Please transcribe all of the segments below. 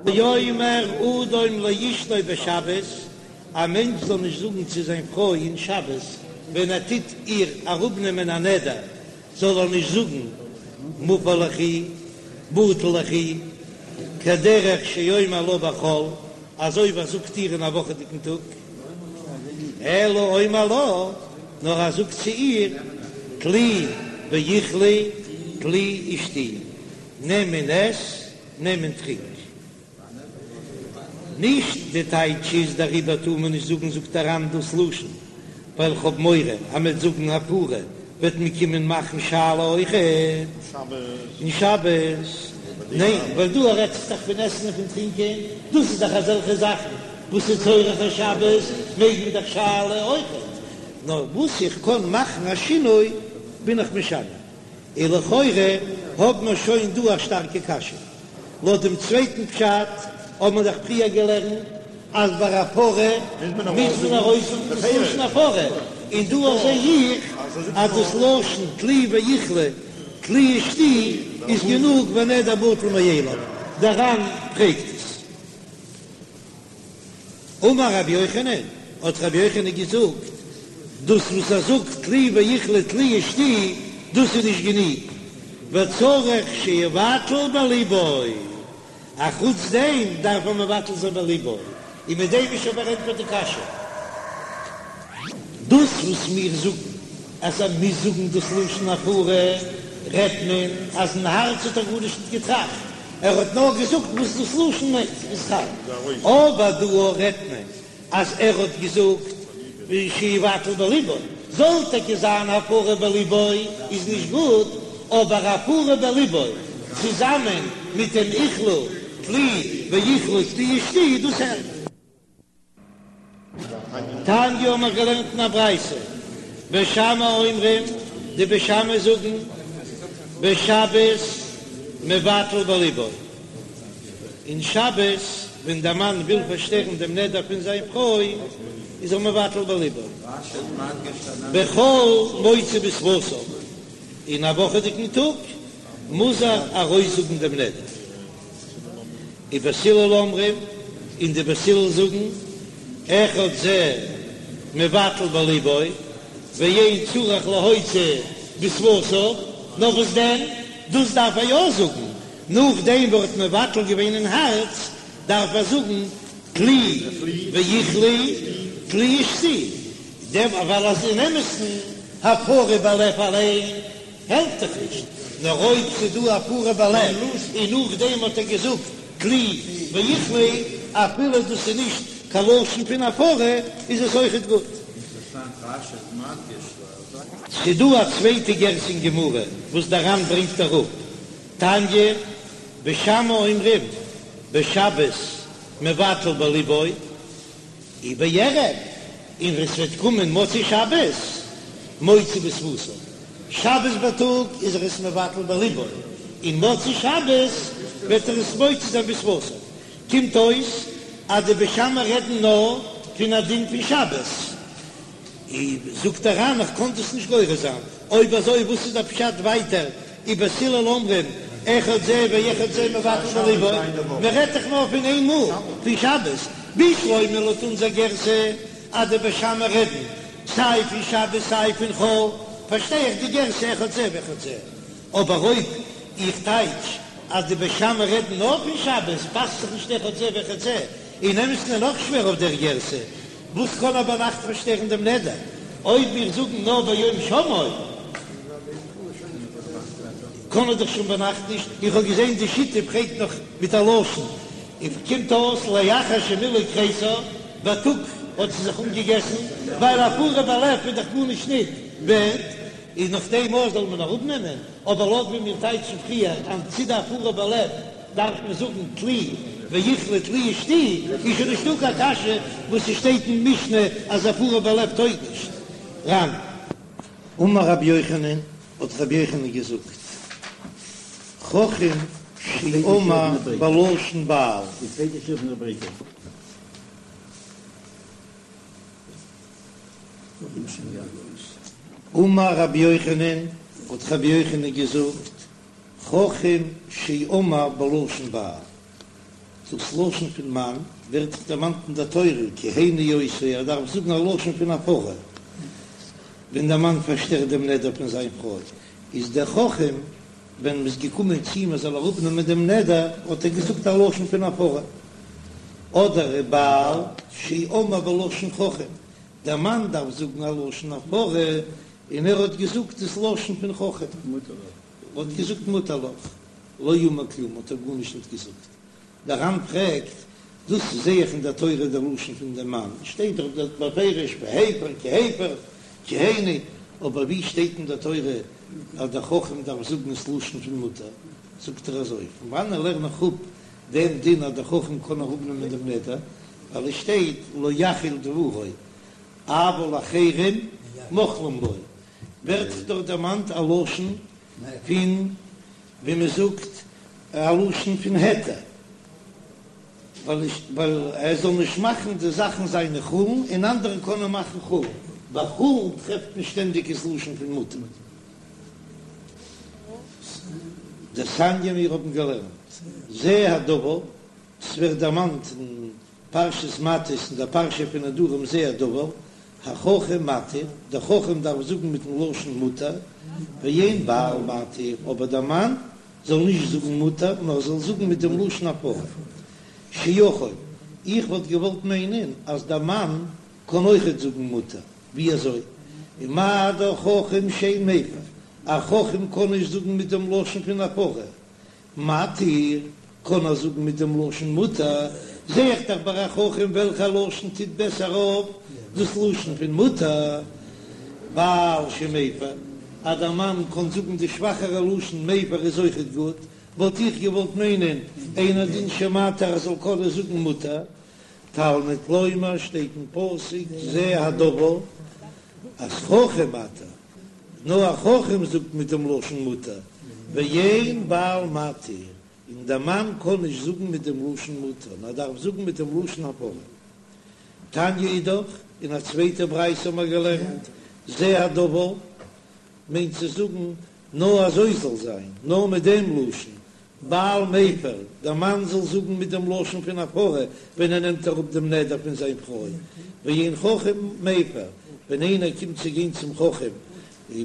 יאמר אדם לאשתו בשבת, א מענטש זאל נישט זאגן צו זיין פרוי אין שבת ווען ער טוט איר אראפנעמען א נדר, זאל ער נישט זאגן מופר ליכי, בטל ליכי, כדרך שאומר לה בחול, אזוי ווי ער זאגט איר אין א וואכעדיגן טאג, אלא אומר לה, נאר ער זאגט צו איר, טלי ואכלי, טלי ושתי, נעם און עס, נעם און טרינק. נישט די טייטש איז דעריבער טאר מען נישט זאגן זאגט דער ר"ן דאס לשון ווייל כ'האב מורא אז מ'עט זאגן הפרה וועט מען קומען מאכן שאלה אויכעט אין שבת, ניין ווייל דא רעדט זיך דאך פון עסן און פון טרינקען דאס איז דאך אזעלכע זאכן וואס איז צורך השבת מעג מען דאך שאלה אויכעט נאר וואס איך קען מאכן א שינוי בין איך משנה און לכאורה האב מיר שוין דא א שטארקע קשיא. לויט דעם צווייטן פשט האט מען דאך פריער געלערנט אז ביי הפרה מוז מען ארויסזאגן דאס לשון הפרה, און דא זע איך אז דאס לשון טלי ואכלי טלי ושתי איז גענוג והנדר בטל מאליו, דער ר"ן פרעגט עס. אמר רבי יוחנן, האט רבי יוחנן געזאגט, דאס וואס ער זאגט טלי ואכלי טלי ושתי, דאס איז נישט גענוג, וצריך שיבטל בליבו, א חוץ דעם דארף ער מבטל זיין בליבו, און מיט דעם איז שוין פארענטפערט די קשיא. דאס וואס מיר זאגן אז ער מוז זאגן דאס לשון הפרה, רעדט מען אז אין הארץ האט ער גארנישט נישט געטראכט, ער האט נאר געזאגט וואס דאס לשון מיינט איז חל, אבער דא רעדט מען אז ער האט געזאגט שיבטל בליבו, זאל טאקע זיין הפרה בליבו איז נישט גוט, אבער הפרה בליבו צוזאמען מיט דעם אכלי טלי ואכלי טלי ושתי דאס העלפט. תניא האבן מיר געלערנט אין א ברייתא, בית שמאי אומרים, די בית שמאי זאגן, בשבת מבטל בליבו, אין שבת ווען דער מאן וויל פארשטערן דעם נדר פון זיין פרוי איז ער מבטל בליבו, בחול מוציא בשפתיו, אין א וואכעדיגן טאג מוז ער ארויסזאגן דעם נדר. ובית הלל אומרים, און די בית הלל זאגן, אחד זה מבטל בליבו, ואין צריך להוציא בשפתיו, נאר וואס דען, דאס דארף ער יא זאגן, נאכדעם וואס ער האט מבטל געווען אין הארץ, דארף ער זאגן טלי ואכלי טלי ושתי, דעם ווייל אז אין אמת'ן הפרה בלב אליין העלפט דאך נישט, נאר אויב ס'איז דא הפרה בלב און נאכדעם האט ער געזאגט טלי ואכלי, אפילו דאס איז נישט קיין לשון פון הפרה, איז עס אויכעט גוט. ס'איז דא א צווייטע גירסא אין גמרא וואס דער ר"ן ברענגט אראפ, תניא, בית שמאי אומרים בשבת מבטל בליבו, ובערב, און ווען ס'וועט קומען מוצאי שבת, מוציא בשפתיו. שבת בייטאג איז ער עס מבטל בליבו, און מוצאי שבת וועט ער עס מוציא זיין בשפתיו. קומט אויס אז די בית שמאי רעדן נאר פון א דין פון שבת. און זאגט דער ר"ן איך קען דאס נישט גורס זיין, אויב אזוי וואס איז דער פשט ווייטער ובית הלל אומרים אחד זה ואחד זה מבטל בליבו, מען רעדט דאך נאר פון איין מאל פון שבת, בשלמא לויט אונזער גירסא אז די בית שמאי רעדן סיי פון שבת סיי פון חול, פארשטיי איך די גירסא אחד זה ואחד זה, אבער אויב איך טייטש אז די בית שמאי רעדן נאר פון שבת פאסט זיך נישט אחד זה ואחד זה, אין אמת'ן איז נאך שווער אויף דער גירסא, וואס קען ער ביינאכט פארשטערן דעם נדר? אויב מיר זאגן נאר ביום שמעו, קען ער דאך שוין ביינאכט נישט, איך האב געזען די שיטה פרעגט נאך מיט א לשון, און קומט אויס לאחר שמילאה כריסה, בייטאג האט זי זיך אנגעגעסן, ווייל הפרה בלב איז דאך גארנישט ניט ווערט, איז נאך דעם אויך זאל מען אראפנעמען, אבער לויט ווי מיר טייטשן פריער אז צו די הפרה בלב דארף מען זאגן טלי ואכלי טלי ושתי, איז שוין נישטא קיין קשיא וואס ס'שטייט אין משנה אז הפרה בלב טויג נישט. ר"ן. אמר רבי יוחנן, האט רבי יוחנן געזאגט, חכם שאמר בלשון בעל. אמר רבי יוחנן, האט רבי יוחנן געזאגט, חכם שאמר בלשון בעל. דאס לשון פון מאן ווערט דאך דערמאנט אין דער תורה כהני אותו, ער דארף זאגן א לשון פון הפרה ווען דער מאן פארשטערט דעם נדר פון זיין פרוי, איז דער חכם ווען מ'איז געקומען צו אים ער זאל אראפנעמען דעם נדר האט ער געזאגט א לשון פון הפרה, אדער ובעל שאמר בלשון חכם, דער מאן דארף זאגן א לשון הפרה און ער האט געזאגט דאס לשון פון חכם, האט געזאגט מותר לך. לא אמר כלום האט ער גארנישט ניט געזאגט. דער ר"ן פרעגט, דאס זעה איך אין דער תורה דער לשון פון דעם מאן, שטייט דאך דארט בפירוש והפר כי הפר כהני, אבער ווי שטייט אין דער תורה אז דער חכם דארף זאגן עס לשון פון מותר? זאגט ער אזוי, פון וואנען לערן איך אפ דעם דין אז דער חכם קען אראפנעמען דעם נדר, ווייל עס שטייט לא יחל דברו אבל אחרים מוחלים לו, ווערט דאך דערמאנט א לשון פון ווי מען זאגט א לשון פון היתר, ווייל ער זאל נישט מאכן די זאכן זיינע חולין און אנדערע קענען מאכן חולין, ביי חולין טרעפט מען שטענדיג עס לשון פון מותר. דתניא מיר האבן געלערנט זה הדבר, ס'ווערט דערמאנט אין פרשת מטות אין דער פרשה פון נדרים זה הדבר, החכם מתיר, דער חכם דארף זאגן מיטן לשון מותר, ואין בעל מתיר, אבער דער מאן זאל נישט זאגן מותר, נאר זאל זאגן מיט דעם לשון הפרה. שיכול, איך וואלט געוואלט מיינען אז דער מאן קען אויכעט זאגן מותר, ווי אזוי? ומה דאך חכם שאין מפר, א חכם קען נישט זאגן מיט דעם לשון פון הפרה, מתיר, קען ער זאגן מיט דעם לשון מותר, זע איך דאך ביי א חכם וועלכע לשון טוט בעסער אויף, דאס לשון פון מותר, בעל שמפר, אז דער מאן קען זאגן די שוואכערע לשון מפר איז אויכעט גוט, וואלט איך געוואלט מיינען אינו דין שמתיר ער זאל קענען זאגן מותר, תלמוד לומר שטייט אין פסוק זה הדבר אז חכם מתיר. נאר א חכם זאגט מיט דעם לשון מותר, ואין בעל מתיר, און דער מאן קען נישט זאגן מיט דעם לשון מותר, נאר דארף זאגן מיט דעם לשון הפרה. תניא אידך, אין א צווייטע ברייתא האבן מיר געלערנט, זה הדבר, מיינט צו זאגן, נאר אזוי זאל זיין, נאר מיט דעם לשון, בעל מפר, דער מאן זאל זאגן מיט דעם לשון פון הפרה ווען ער נעמט אראפ דעם נדר פון זיין פרוי, ואין חכם מפר, ווען איינער קומט צו גיין צום חכם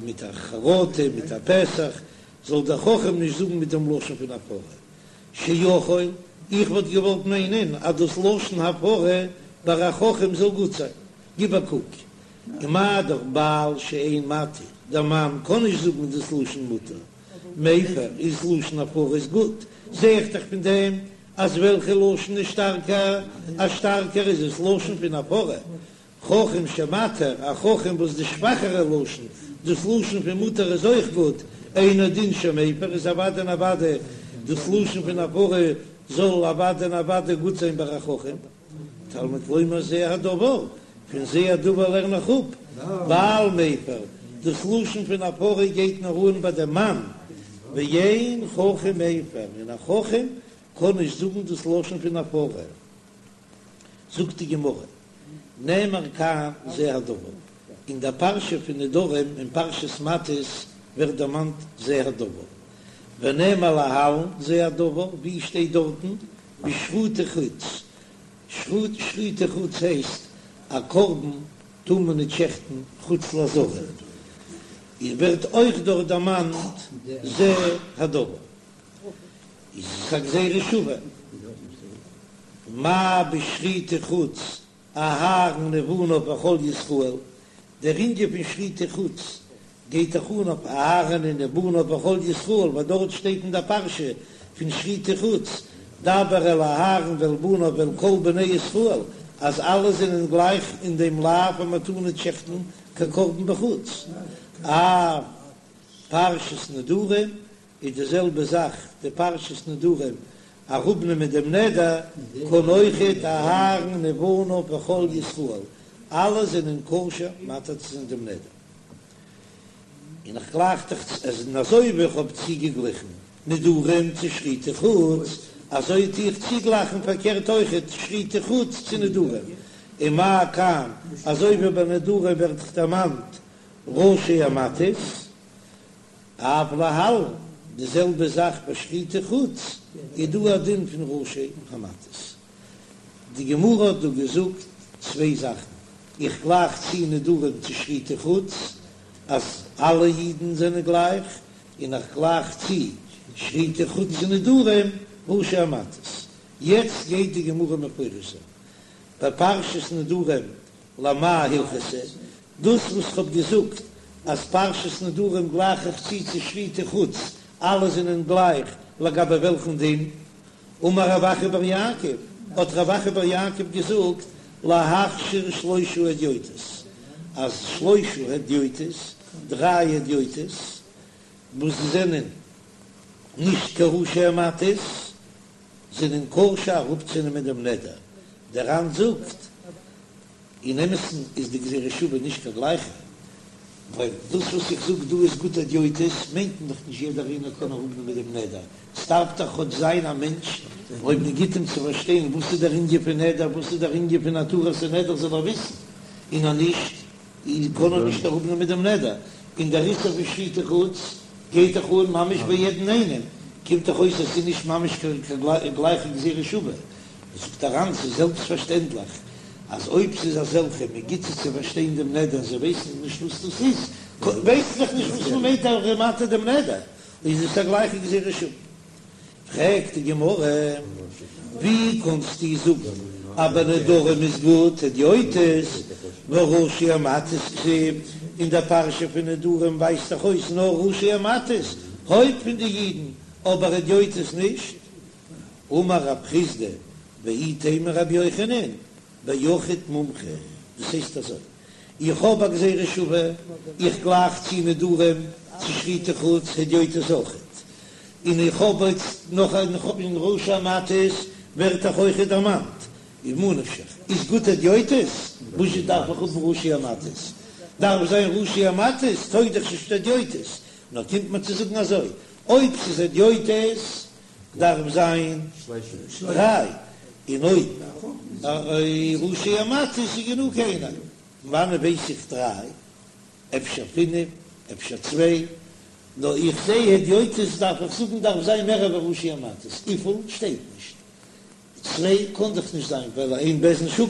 מיט א חרטה, מיט א פתח, זאל דער חכם נישט זאגן מיט דעם לשון פון הפרה. שיכול, איך וואלט געוואלט מיינען אז דאס לשון הפרה ביי א חכם זאל גוט זיין. גיב א קוק, ומה דאך בעל שאין מתיר, דער מאן קען נישט זאגן דאס לשון מותר, מפר איז לשון הפרה איז גוט, זע איך דאך פון דעם אז וועלכע לשון איז שטארקער, אז שטארקער איז עס לשון פון הפרה, חכם שמתיר, א חכם וואס די שוואכערע לשון, דאס לשון פון מותר איז אויך גוט, אינו דין שמפר איז אוודאי און אוודאי דאס לשון פון הפרה זאל אוודאי און אוודאי גוט זיין ביי א חכם. תלמוד לומר זה הדבר, פון זה הדבר לערן איך אפ, בעל מפר, דאס לשון פון הפרה גייט נאר אן ביי דעם מאן, ואין חכם מפר, און א חכם קען נישט זאגן דאס לשון פון הפרה. זאגט די גמרא, נאמר כאן זה הדבר, אין דער פרשה פון נדרים אין פרשת מטות ווערט דערמאנט זה הדבר, ונאמר להלן זה הדבר, ווי שטייט דארטן בשחוטי חוץ, שחוטי חוץ הייסט א קרבן טאר מען ניט שעכטן חוץ לעזרה, איז ווערט אויך דארט דערמאנט זה הדבר, איז עס א גזירה שווה, מה בשחוטי חוץ אהרן ובניו וכל ישראל, דער ענין פון שחוטי חוץ גייט דאך אן אויף אהרן און ובניו וכל ישראל, ווייל דארט שטייט אין דער פרשה פון שחוטי חוץ, דבר אל אהרן ואל בניו ואל כל בני ישראל, אז אלע זענען גלייך אין דעם לאו אז מען טאר ניט שעכטן קיין קרבן בחוץ. אף פרשת נדרים איז די זעלבע זאך די פרשת נדרים אראפנעמען דעם נדר קען אויכעט אהרן ובניו וכל ישראל אלע זענען כשר מתיר צו זיין דעם נדר און איך גלייך דיך אז און אזוי ווי איך האב צוגעגליכן נדרים צו שחוטי חוץ אזוי טו איך צוגלייכן פארקערט אויכעט שחוטי חוץ צו נדרים ומה כאן אזוי ווי ביי נדרים ווערט דאך דערמאנט ראשי המטות. אף להלן, די זעלבע זאך ביי שחוטי חוץ. איז דא א דין פון ראשי המטות. די גמרא האט דא געזאגט צוויי זאכן, איך גלייך צו נדרים צו שחוטי חוץ אז אלע אידן זענען גלייך, און איך גלייך צו שחוטי חוץ צו נדרים ראשי המטות. יעצט גייט די גמרא מפרש זיין בפרשת נדרים למאי הלכתא, דאס וואס כ'האב געזאגט אז פרשת נדרים גלייך איך צו צו שחוטי חוץ, אלע זענען גלייך לגבי וועלכן דין? אמר רב אחא בר יעקב, האט רב אחא בר יעקב געזאגט, להכשיר שלושה הדיוטות, אז שלושה הדיוטות, דריי הדיוטות, וואס זענען נישט קיין ראשי המטות, זענען כשר אראפצונעמען דעם נדר, דער ר"ן זאגט, אין אמת'ן איז די גזירה שוה נישט קיין גלייכע, ווייל דאס וואס איך זאג דא איז גוט הדיוטות, מיינט מען דאך נישט יעדער איינער קען אראפנעמען דעם נדר, ס'דארף דאך כאטש זיין א מענטש אויב מען גיט אים צו פארשטיין וואס איז דער ענין פון נדר, וואס איז דער ענין פון התרת הנדר זאל ער וויסן, און אז נישט קען ער נישט אראפנעמען דעם נדר, און דער איסור פון שחוטי חוץ גייט דאך אן ממש ביי יעדן איינעם, קומט דאך אויס אז ס'איז נישט ממש קיין גלייכע גזירה שוה. זאגט דער ר"ן ס'איז זעלבסט פארשטענדליך אז אויב ס'איז אזעלכע מען גיט זיי צו פארשטיין דעם נדר זיי ווייסן נישט וואס דאס איז, ווייסן דאך נישט וואס מען מיינט אז ער איז מתיר דעם נדר, איז עס א גלייכע גזירה שוה. פרעגט די גמרא, ווי קענסטו זאגן אז ביי נדרים איז גוט הדיוטות, והא ראשי המטות כתיב, אין דער פרשה פון נדרים ווייזט דאך אויס נאר ראשי המטות, הויפט פון די אידן, אבער הדיוטות נישט? אמר רב חסדא ואיתימא רבי יוחנן ביחיד מומחה, דאס הייסט אזוי, איך האב א גזירה שווה, איך גלייך צו נדרים צו שחוטי חוץ הדיוטות אויכעט, און איך האב איצט נאך א איך האב אין ראשי המטות ווערט דאך אויכעט דערמאנט, איז ממה נפשך איז גוט הדיוטות, וואזשע דארף איך האבן ראשי המטות? דארף זיין ראשי המטות טויג דאך נישט הדיוטות, נאר קומט מען צו זאגן אזוי, אויב ס'איז הדיוטות דארף זיין דריי, און אויב ראשי המטות איז גענוג איינער, פון וואנען ווייס איך דריי? אפשר פינף, אפשר צוויי, נאר איך זע הדיוטות דארף איך זאגן דארף זיין מער ווי ראשי המטות, וויפיל שטייט נישט, צוויי קען דאך נישט זיין ווייל אין בית דין שקול,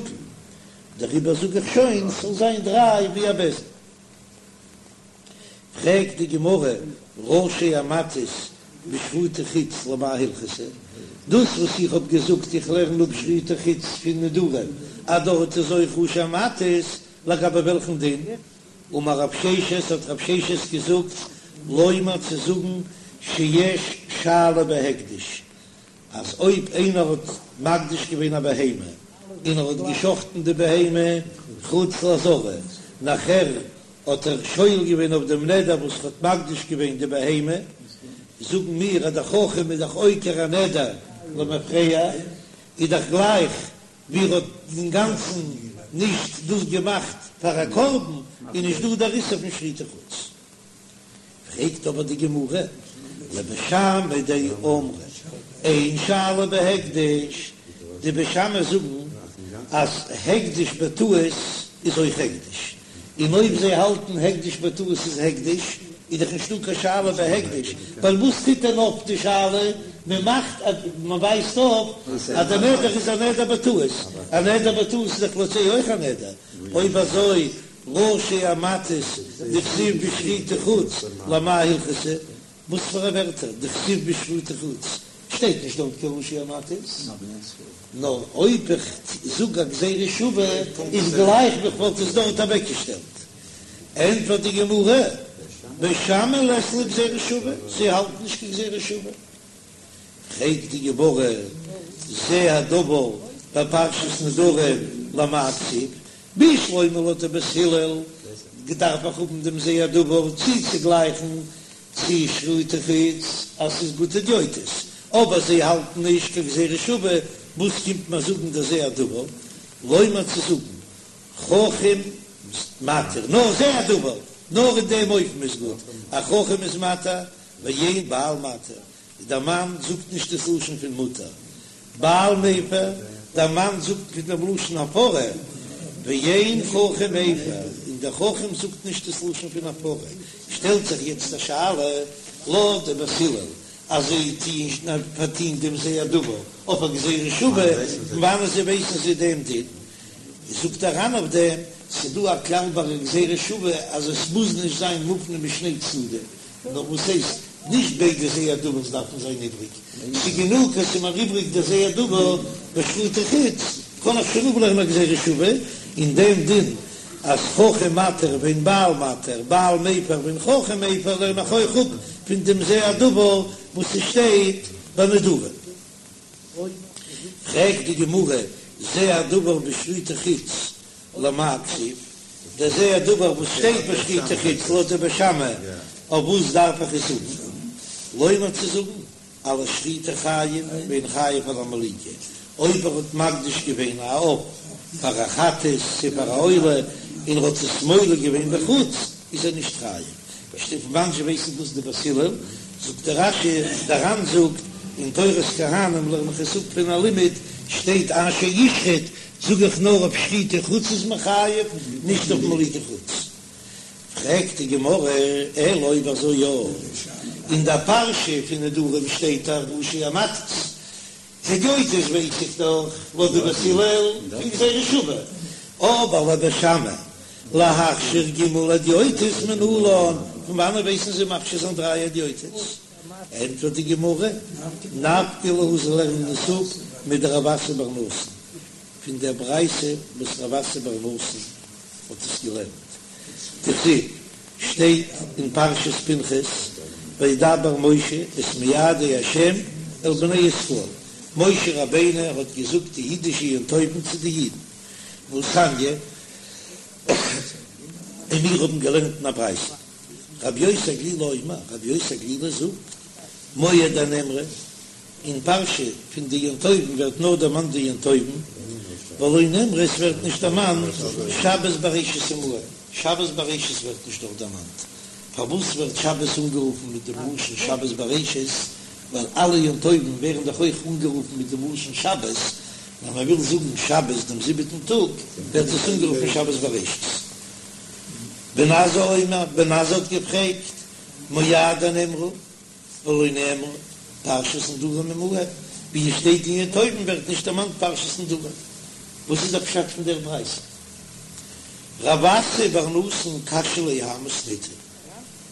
דעריבער זאג איך שוין ס'זאל זיין דריי ווי א בית דין. פרעגט די גמרא, ראשי המטות בשחוטי חוץ למאי הלכתא, דאס וואס איך האב געזאגט איך לערן אפ שחוטי חוץ פון נדרים אז דארט איז אויך ראשי המטות, לגבי וועלכן דין? אמר רב ששת, האט רב ששת געזאגט, לומר צו זאגן שיש שאלה בהקדש, אז אויב איינער האט מקדיש געווען א בהמה און ער האט געשחטן די בהמה חוץ לעזרה, נאכער האט ער שואל געווען אויף דעם נדר וואס ער האט מקדיש געווען די בהמה, זאגן מיר אז דער חכם איז דאך עוקר א נדר למפרע, איז דאך גלייך ווי ער האט אינגאנצן נישט דאס געמאכט פאר א קרבן, איז נישט דא דער איסור פון שחוטי חוץ. פרעגט אבער די גמרא, לבית שמאי דאמרי אין שאלה בהקדש, די בית שמאי זאגן אז הקדש בטעות איז אויך הקדש, און אויב זיי האלטן הקדש בטעות איז הקדש, איז דאך נישטא קיין שאלה בהקדש, ווייל וואס טוט דען אויף די שאלה, מען מאכט אז מען ווייזט אויף אז דער נדר איז א נדר בטעות, א נדר בטעות איז דאך לויט זיי אויך א נדר, אויב אזוי ראשי המטות דכתיב בשחוטי חוץ למאי הלכתא, וואס פאר א ווערטער דכתיב בשחוטי חוץ שטייט נישט דארט קיין ראשי המטות, נאר אויב איך זאג א גזירה שווה איז גלייך ווי כ'וואלט עס דארט אוועקגעשטעלט. ענטפערט די גמרא, בית שמאי לית להו גזירה שווה, זיי האלטן נישט קיין גזירה שווה. פרעגט די גמרא, זה הדבר בפרשת נדרים למאי כתיב, בשלמא לויט די בית הלל דארף איך האבן דעם זה הדבר צוצוגלייכן צו שחוטי חוץ אז ס'איז גוט הדיוטות, אבער זיי האלטן נישט קיין גזירה שווה, וואס קומט מיר זאגן דער זה הדבר? לומר צו זאגן חכם מתיר, נאר זה הדבר, נאר אין דעם אופן איז גוט, א חכם איז מתיר ואין בעל מתיר, דער מאן זאגט נישט דאס לשון פון מותר, בעל מפר, דער מאן זאגט פון דעם לשון הפרה, ואין חכם מפר, און דער חכם זאגט נישט דאס לשון פון הפרה, שטעלט זיך יעצט א שאלה, לויט די בית הלל. אז זיי טוען פארטוהן דעם זה הדבר אויף א גזירה שווה, פון וואנען זיי ווייסן זיי דעם דין? זאגט דער ר"ן אויף דעם, ס'דא א כלל ביי א גזירה שווה אז עס מוז נישט זיין מופנה משני צדדים, נאר וואס הייסט, נישט ביידע זה הדבר'ס דארפן זיין איבריג, ס'גענוג אז ס'איז מיר איבריג דער זה הדבר בשחוטי חוץ, קען איך שוין אפלערנען א גזירה שווה, און דעם דין אז חכם מתיר ואין בעל מתיר, בעל מפר ואין חכם מפר לערן איך אויך אפ פון דעם זה הדבר וואס ס'שטייט ביי נדרים. פרעגט די גמרא, זה הדבר בשחוטי חוץ למאי כתיב, דער זה הדבר וואס שטייט בשחוטי חוץ לויט די בית שמאי, אויף וואס דארף איך עס האבן? לומר צו זאגן על השחיטה חייב ואין חייב על המליקה, אויב ער האט מקדיש געווען א עוף פאר א חטאת צו פאר א עולה און ער האט עס מולק געווען בחוץ איז ער נישט חייב. פון וואנען זשע ווייסן דאס די בית הלל? זאגט דער רש"י, דער ר"ן זאגט אין תורת כהנים לערן איך עס אפ פון א לימוד, שטייט אשר ישחט, זאג איך נאר אויף שחוטי חוץ איז מען חייב, נישט אויף מליקה חוץ. פרעגט די גמרא, אלא אויב אזוי יא, אין דער פרשה פון נדרים שטייט דאך ראשי המטות, הדיוטות ווייס איך דאך לויט די בית הלל פון גזירה שווה, אבער לבית שמאי להכשיר ג' הדיוטות מנלן, פון וואנען ווייסן זיי מכשיר זיין דריי הדיוטות? ענטפערט די גמרא, נפקא להו זיי לערנען עס אפ מדרב אסי בר נתן, פון דער ברייתא וואס רב אסי בר נתן האט עס געלערנט, דכתיב, שטייט אין פרשת פנחס, וידבר משה את מועדי ה' אל בני ישראל, משה רבינו האט געזאגט די אידישע יום טובים צו די אידן, והתניא, און מיר האבן געלערנט אין א ברייתא, רבי יוסי הגלילי אומר, רבי יוסי הגלילי זאגט, מועדי נאמרו, אין פרשה פון די יום טובים ווערט נאר דערמאנט די יום טובים, ולא נאמרו עס ווערט נישט דערמאנט שבת בראשית עמהם, שבת בראשית ווערט נישט דארט דערמאנט, פארוואס ווערט שבת אנגערופן מיט דעם לשון שבת בראשית, ווייל אלע יום טובים ווערן דאך אויך אנגערופן מיט דעם לשון שבת, ווען מען וויל זאגן שבת דעם זיבעטן טאג ווערט עס אנגערופן שבת בראשית. בן עזאי אומר, בן עזאי האט געפרעגט, מועדי נאמרו ולא נאמרה פרשת נדרים עמהם, ווי עס שטייט אין יום טובים ווערט נישט דערמאנט פרשת נדרים, וואס איז דער פשט פון דער ברייתא? רב אסי בר נתן קשיא ליה האי מתניתא,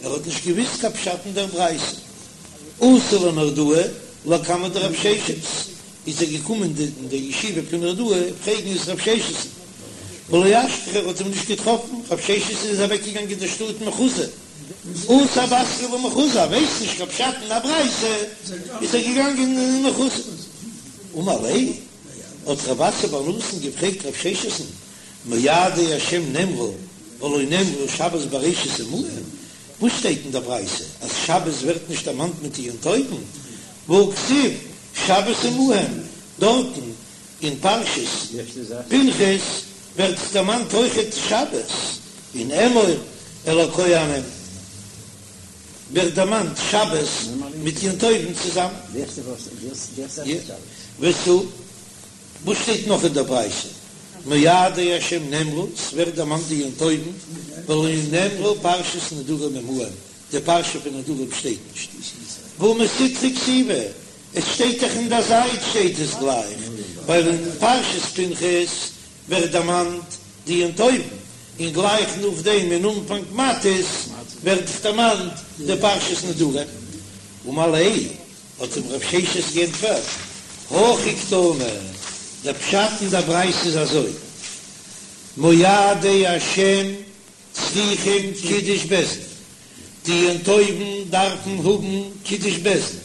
ער האט נישט געוויסט קיין פשט אין דער ברייתא, אתא לנהרדעא לקמיה דרב ששת, איז ער געקומען אין דער ישיבה פון נהרדעא פרעגן עס רב ששת'ן, ולא אשכחיה ער האט אים נישט געטראפן, רב ששת איז אוועקגעגאנגען אין דער שטאט מחוזא. אתא בתריה למחוזא, ווייסט נישט קיין פשט אין א ברייתא, איז ער געגאנגען אין מחוזא. אמר ליה, האט רב אסי בר נתן געפרעגט רב ששת'ן, מועדי השם נאמרו ולא נאמרה שבת בראשית עמהם, וואס שטייט אין דער ברייתא אז שבת ווערט נישט דערמאנט מיט די יום טובים, והכתיב שבת עמהם, דארטן אין פרשת פנחס ווערט דערמאנט אויכעט שבת, אין אמור אל הכהנים ווערט דערמאנט שבת מיט יום טובים צוזאמען. ותו, וואס שטייט נאך אין דער ברייתא? מועדי השם נאמרו, ס'ווערט דערמאנט די יום טובים, ולא נאמרה פרשת נדרים עמהם, די פרשה פון נדרים שטייט נישט. והא מסיטרא כתיבא, עס שטייט דאך אין דער זייט שטייט עס גלייך, ווייל אין פרשת פנחס ווערט דערמאנט די יום טובים, און גלייך נאכדעם אין אנפאנג מטות ווערט דערמאנט די פרשת נדרים. אמר ליה, האט אים רב ששת גענטפערט, הכי קתני, דער פשט אין דער ברייתא איז אזוי, מועדי השם צריכים קידוש בית דין, די יום טובים דארפן האבן קידוש בית דין,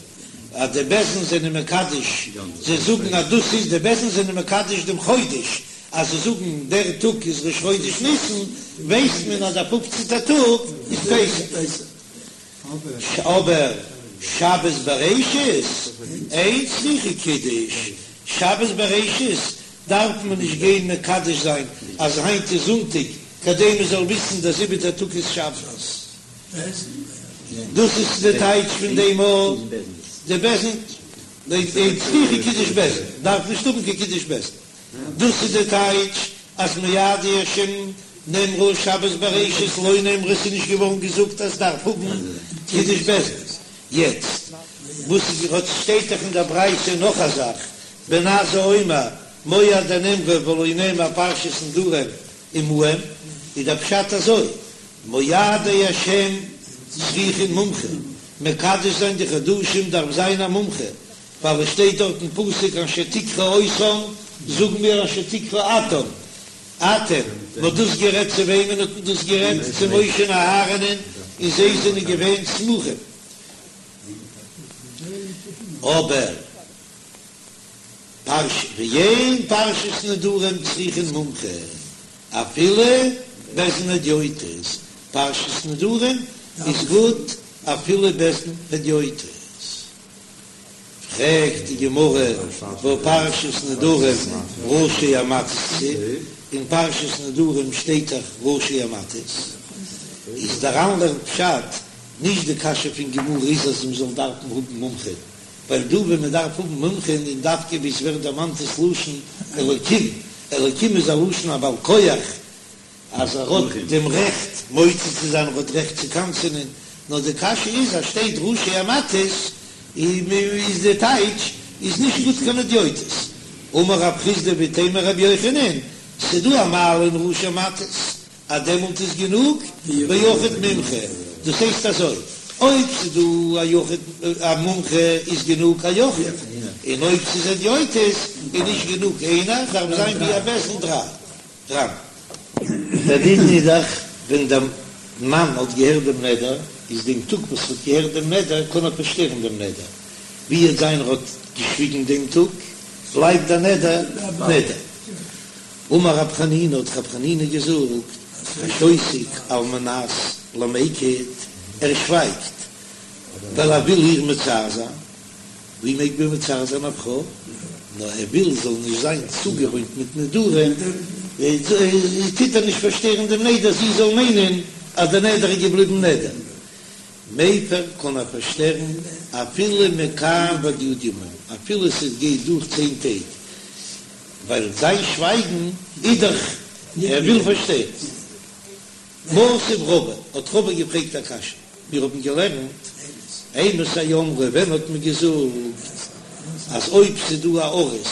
אז די בית דין זענען מקדש, זיי זאגן אז דאס איז, די בית דין זענען מקדש דעם חודש, אז זיי זאגן דער טאג איז ראש חודש ניסן, ווייסט מען אז דער פופצנטער טאג איז פסח. אבער שבת בראשית אין צריכה קידוש, שבת בראשית דארף מען נישט גיין מקדש זיין אז היינט איז זונטאג כדי מען זאל וויסן דער זיבעטער טאג איז שבת. דאס איז די טייטש פון דעם אז די בית דין אין צריכה קידוש בית דין דארף נישט האבן קיין קידוש בית דין. דאס איז די טייטש אז מועדי השם נאמרו שבת בראשית לא נאמרה ס'איז נישט געווארן געזאגט אז דארף האבן קידוש בית דין. יעצט. וואס האט שטייט דאך אין דער ברייתא נאך א זאך, בן עזאי אומר מועדי נאמרו ולא נאמר פרשת נדרים עמהם, איז דער פשט אזוי, מועדי השם צריכין מומחה, מקדש זיין די חדשים דארף זיין א מומחה, ווייל עס שטיידט דארט אין פסוק אשר תקראו אותם, זאגן מיר אשר תקראו אתם, אתם, מען האט דאס גערעדט צו וועמען האט מען דאס גערעדט? צו משה און אהרן'ען, און זיי זענען געווען סמוכים. אבער פרש ואין פרשת נדרים צריכין מומחה, אפילו בית דין הדיוטות, פרשת נדרים איז גוט אפילו בית דין הדיוטות. פרעגט די גמרא והא פרשת נדרים ראשי המטות כתיב, אין פרשת נדרים שטייט דאך ראשי המטות, איז דער ר"ן לערנט פשט, נישט די קשיא פון גמרא איז אז מ'זאל דארפן האבן מומחים, ווייל דא ווען מ'דארף האבן מומחים איז דווקא ווי עס ווערט דערמאנט דאס לשון אלקים, אלקים איז א לשון א בעל כח, אז ער האט דעם רעכט מוציא צו זיין, ער האט רעכט צו קנס'ענען, נאר די קשיא איז אז שטייט ראשי המטות איז די טייטש איז נישט גוט קיין הדיוטות. אמר רב חסדא ואיתימא רבי יוחנן, ס'דא א מעלה אין ראשי המטות אז דעמאלט איז גענוג ביחיד מומחה, דאס הייסט אזוי, אויב ס'דא א יחיד א מומחה איז גענוג א יחיד, און אויב ס'איז הדיוטות איז נישט גענוג איינער, דארף זיין ווי א בית דין דריי. ר"ן. דער דין איז דאך ווען דער מאן האט געהערט דעם נדר, איז דעם טאג וואס ער האט געהערט דעם נדר קען ער פארשטערן דעם נדר, ווי וועט זיין ער האט געשוויגן דעם טאג, בלייבט דער נדר נדר. אמר רב חנינא האט רב חנינא געזאגט, השותק על מנת למיקט, ער שווייגט ווייל ער וויל איר מצער זיין, ווי מעג מען מצער זיין א פרוי? נאר ער וויל זאל נישט זיין צוגעוואוינט מיט נדרים, טוט ער נישט פארשטערן דעם נדר זי זאל מיינען אז דער נדר איז געבליבן נדר. מפר קען ער פארשטערן אפילו מכאן ועד י' ימים, אפילו ס'גייט דורך צען טעג, ווייל זיין שווייגן איז דאך ער וויל פארשטערן. מתיב רבא, האט רבא געפרעגט א קשיא, מיר האבן געלערנט, אימתי אמרו, ווען האט מען געזאגט אז אויב ס'איז דא א ארוס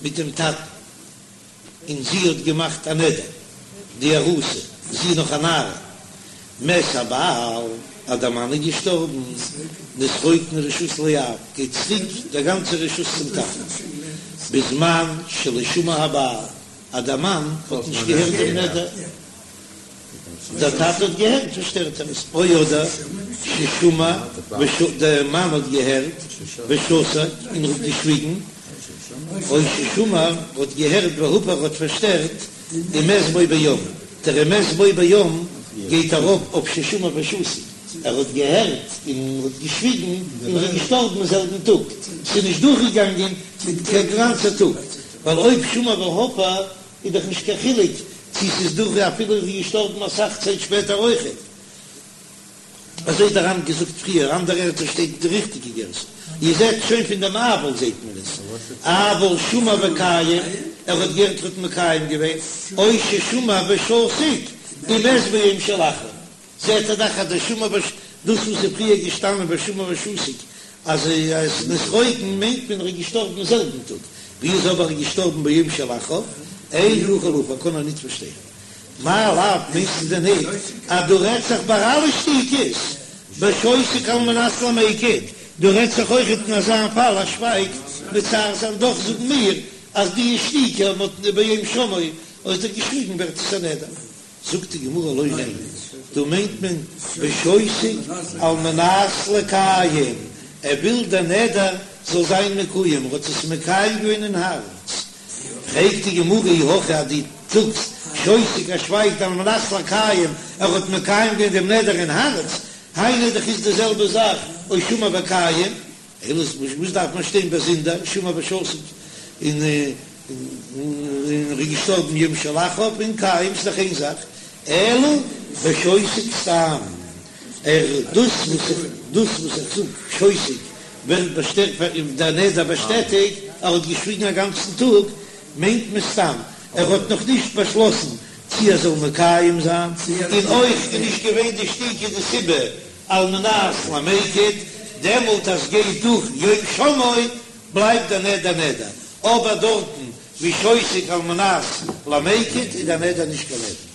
מיט דעם טאטן און זי האט געמאכט א נדר, די ארוסה, זי איז נאך א נערה, מת הבעל, אז דער מאן איז געשטארבן, נתרוקנה רשות לאב, גייט צוריק דער גאנצער רשות צום טאטן, בזמן שלא שמע הבעל. אז דער מאן האט נישט געהערט דעם נדר, דער טאטע האט געהערט פארשטערט ער עס, או אדער ששמע דער מאן האט געהערט ושתק און ער האט געשוויגן, או ששמע האט געהערט והפר האט פארשטערט ומת בו ביום, דער ומת בו ביום גייט ארויף אויף ששמע ושתק, ער האט געהערט און האט געשוויגן און ער איז געשטארבן אין זעלבן טאג, ס'איז נישט דורכגעגאנגען קיין גאנצער טאג. ווייל אויב שמע והפר איז דאך נישט קיין חילוק צו ס'איז דורך אפילו איז געשטארבן אסאך צייט שפעטער אויכעט. אזוי האט דער ר"ן געזאגט פריער, אנדערע ערטער שטייט די ריכטיגע גירסא. איר זעט שוין פון דעם אבל זעט מען עס, אבל שמע וקיים, ער האט געהערט ער האט מקיים געווען, או ששמע ושתק, ומת ביום שלאחריו. זעט ער דאך אז דער שמע וש דאס וואס איז פריער געשטאנען ושמע ושתק אז עס נתרוקן מיינט מען ער איז געשטארבן זעלבן טאג, ווי איז אבער ער געשטארבן ביום שלאחריו, אין יכול להפר קען ער ניט פארשטערן. מאי לאו מיינסטו דען ניט אז דא רעדט זיך ביי אלע שתיקות בשותק על מנת למיקט, דא רעדט זיך אויכעט אין אזא פאל אז שווייגט מצער זיין דאך זאגן מיר אז די שתיקה האט ביום שמעו האט ער געשוויגן ווערט עס א נדר. זאגט די גמרא לא ניין, דא מיינט מען בשותק על מנת לקיים, ער וויל דער נדר זאל זיין מקוים, ער האט עס מקיים געווען אין הארץ. פרעגט די גמרא אי הכי אז דו זאגסט שותק ער שווייגט על מנת לקיים, ער האט מקיים געווען דעם נדר אין הארץ, היינו דאך איז די זעלבע זאך או שמע וקיים, אלא וואס דארף מען שטיין באזונדער שמע ושתק און און ער איז געשטארבן יום שלאחריו און קיים ס'איז דאך איין זאך, אלא בשותק סתם, ער דאס וואס איך דאס וואס איך זאג שותק ווערט באשטעטיגט דער נדר באשטעטיגט, ער האט געשוויגן א גאנצן טאג מיינט מען סתם ער האט נאך נישט באשלאסן צי ער זאל מקיים זיין, און אויך איז נישט געווען די שתיקה די סיבה על מנת למיקט. דעמאלט אז גייט דורך יום שמעו בלייבט דער נדר נדר, אבער דארטן ווי שותק על מנת למיקט איז דער נדר נישט קיין נדר.